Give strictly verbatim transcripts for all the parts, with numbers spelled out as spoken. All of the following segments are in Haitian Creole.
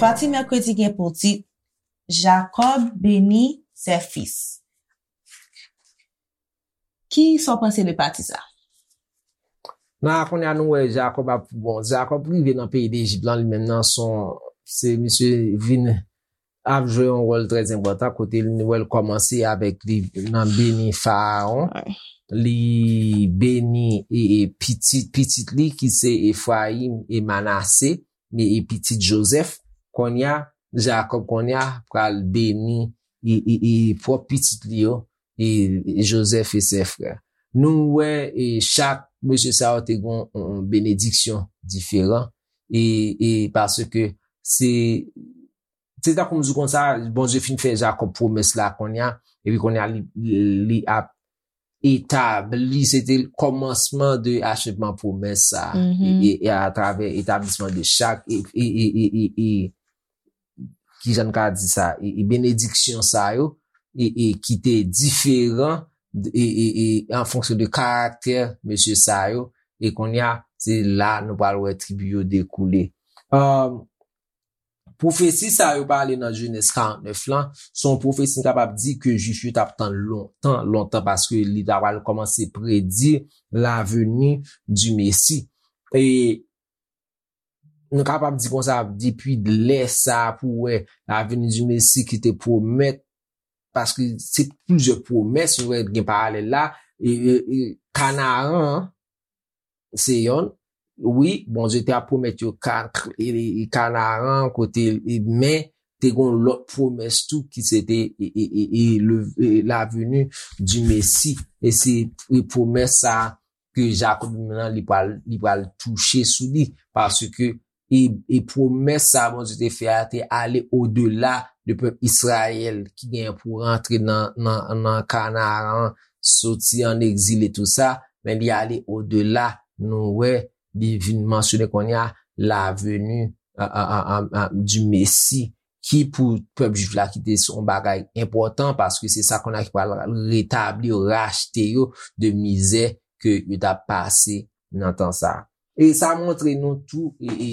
Pati mèkredi gen pou tit Jakòb beni ses fils. Ki sa w panse de pati sa? Nan kounye a nou wè Jakòb ap bon, Jakòb rive nan peyi Dejip lan li menm nan son se misye vin ap jwe yon wòl trè enpòtan kote nou wè l kòmanse avèk li nan beni Farawon. Li beni e, e pitit pitit li ki se Efrayim e Manase e, e pitit Jozèf. Kounye a Jakòb kounye a pral beni e, e, e pwòp pitit li yo e, e Jozèf e sè frè. Nou wè e chak mesye sa yo te gen yon benediksyon diferan e, e paske se se tankou m di konsa Bondye fin fè Jakòb pwomès la kounye a epi kounye a li, li ap etabli se te kòmansman de achevman pwomès sa e, e, e atravè etablisman de chak e, e, e, e, e, e ki jan n ka di sa e, e benediksyon sa yo e, e ki te diferan e, e, e an fonksyon de karaktè mesye sa yo e kounye a se la nou pral wè tribi yo dekoule. Um, pwofesi sa yo pale nan Jenèz karant nèf lan se yon pwofesi n kapab di ke Jwif yo t ap tann lontan lontan paske li ta pral kòmanse predi laveni di Mesi. E nou kapab di konsa depi lè sa pou wè laveni di Mesi ki te pwomèt paske se plizyè pwomès nou wè gen paralèl la e, e, e Kanaran se yonn wi Bondye te ap pwomèt yo Kanaran kote men te gen lòt pwomès tou ki se te laveni di Mesi e se pwomès sa ke Jakòb li menm nan li pral li pral touche sou li paske e, e pwomès sa Bondye te fè a te ale odela de pèp Izrayèl ki gen pou rantre nan nan nan Kanaran soti an egzil e tou sa men li ale odela nou wè li vin mansyone kounye a laveni di Mesi ki pou pèp jwif la ki te se yon bagay enpòtan paske se sa kounye a ki pral retabli yo rachte yo de mizè ke yo t ap pase nan tan sa. E sa montre nou tou e, e,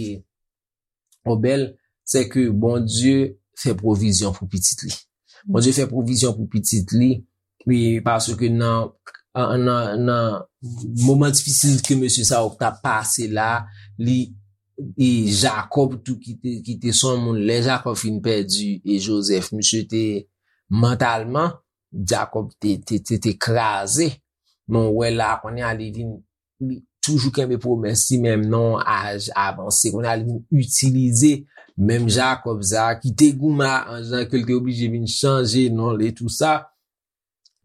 Obèl, se ke Bondye fè pwovizyon pou pitit li. Bondye fè pwovizyon pou pitit li, e paske nan nan nan moman difisil ke mesye sa yo t ap pase la, li e Jakòb tou ki te ki te se yon moun lè Jakòb fin pèdi e Jozèf, misye te mantalman Jakòb te te te, te kraze. Men w wè la kounye a li vin li toujou kenbe pwomès li menm nan yon aj avanse. Kounye a li vin itilize menm Jakòb sa a ki te goumen a anj lan ke l te oblije vin chanje non l e tou sa.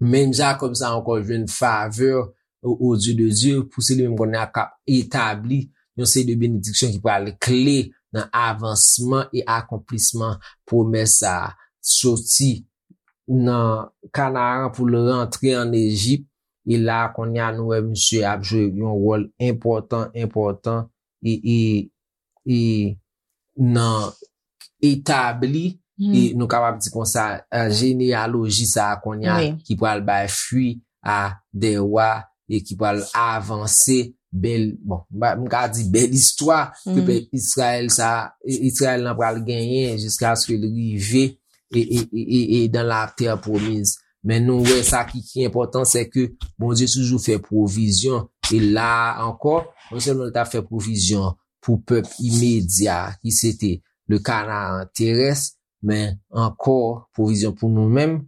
Menm Jakòb sa a ankò jwenn favè o o zye de Dye pou se li menm kounye a k ap etabli yon seri de benediksyon ki pral kle nan avansman e akonplisman pwomès sa a. Soti nan Kanaran pou l rantre ann Ejip. E la kounye a nou wè misye ap jwe yon wòl enpòtan enpòtan e e e nan etabli e nou kapab di konsa jeneyaloji sa a kounye a ki pral bay fwi a de wa e ki pral avanse bèl bon m ka di bèl istwa ke pèp Izrayèl sa Izrayèl lan pral genyen jiskaske l rive e, e, e, e, e dans la terre promise. Men nou wè sa ki, ki enpòtan, se ke Bondye toujou fè pwovizyon. E la ankò, non sèlman li t ap fè pwovizyon pou pèp imedya ki se te le Canaan terrestre, men ankò pwovizyon pou nou menm,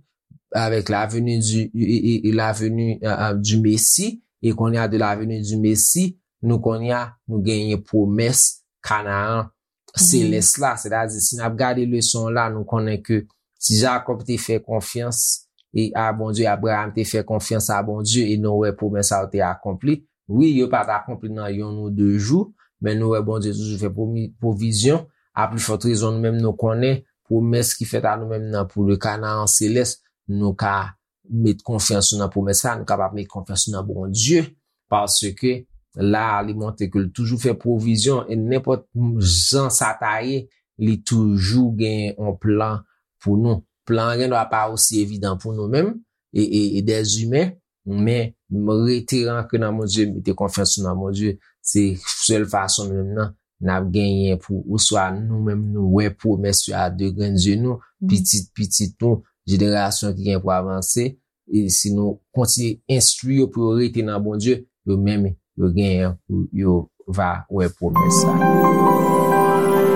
avec la venue du, e, e, e la venue euh, euh, du Messie, e kounye a de la venue du Messie, nou kounye a nou genyen pwomès Kanaan selès la. Sètadi, si n ap gade leson an la, nou konnen ke si Jakòb te fè konfyans e a Bondye, Abraram te fè konfyans a Bondye e nou wè pwomès sa yo te akonpli. Wi, yo pa t akonpli nan yonn ou de jou, men nou wè Bondye toujou fè pwomi- pwovizyon. A pli fòt rezon, nou menm nou konnen pwomès ki fèt a nou menm nan pou le Kanaan selès, nou ka met konfyans nou nan pwomès la, nou kapab met konfyans nou nan Bondye, paske la li montre ke l toujou fè pwovizyon e nenpòt jan sa ta ye, li toujou gen yon plan pou nou. Plan an gendwa pa osi evidan pou nou menm e, e, e dèzimen, men rete ankre nan Bondye, mete konfyans nou nan Bondye. Se sèl fason menm nan n ap genyen pou oswa nou menm nou wè pwomès yo a de grenn zye nou, pitit pitit nou, jenerasyon ki gen pou avanse. E si nou kontinye enstwi yo pou yo rete nan Bondye, yo menm yo genyen pou yo va wè pwomès sa.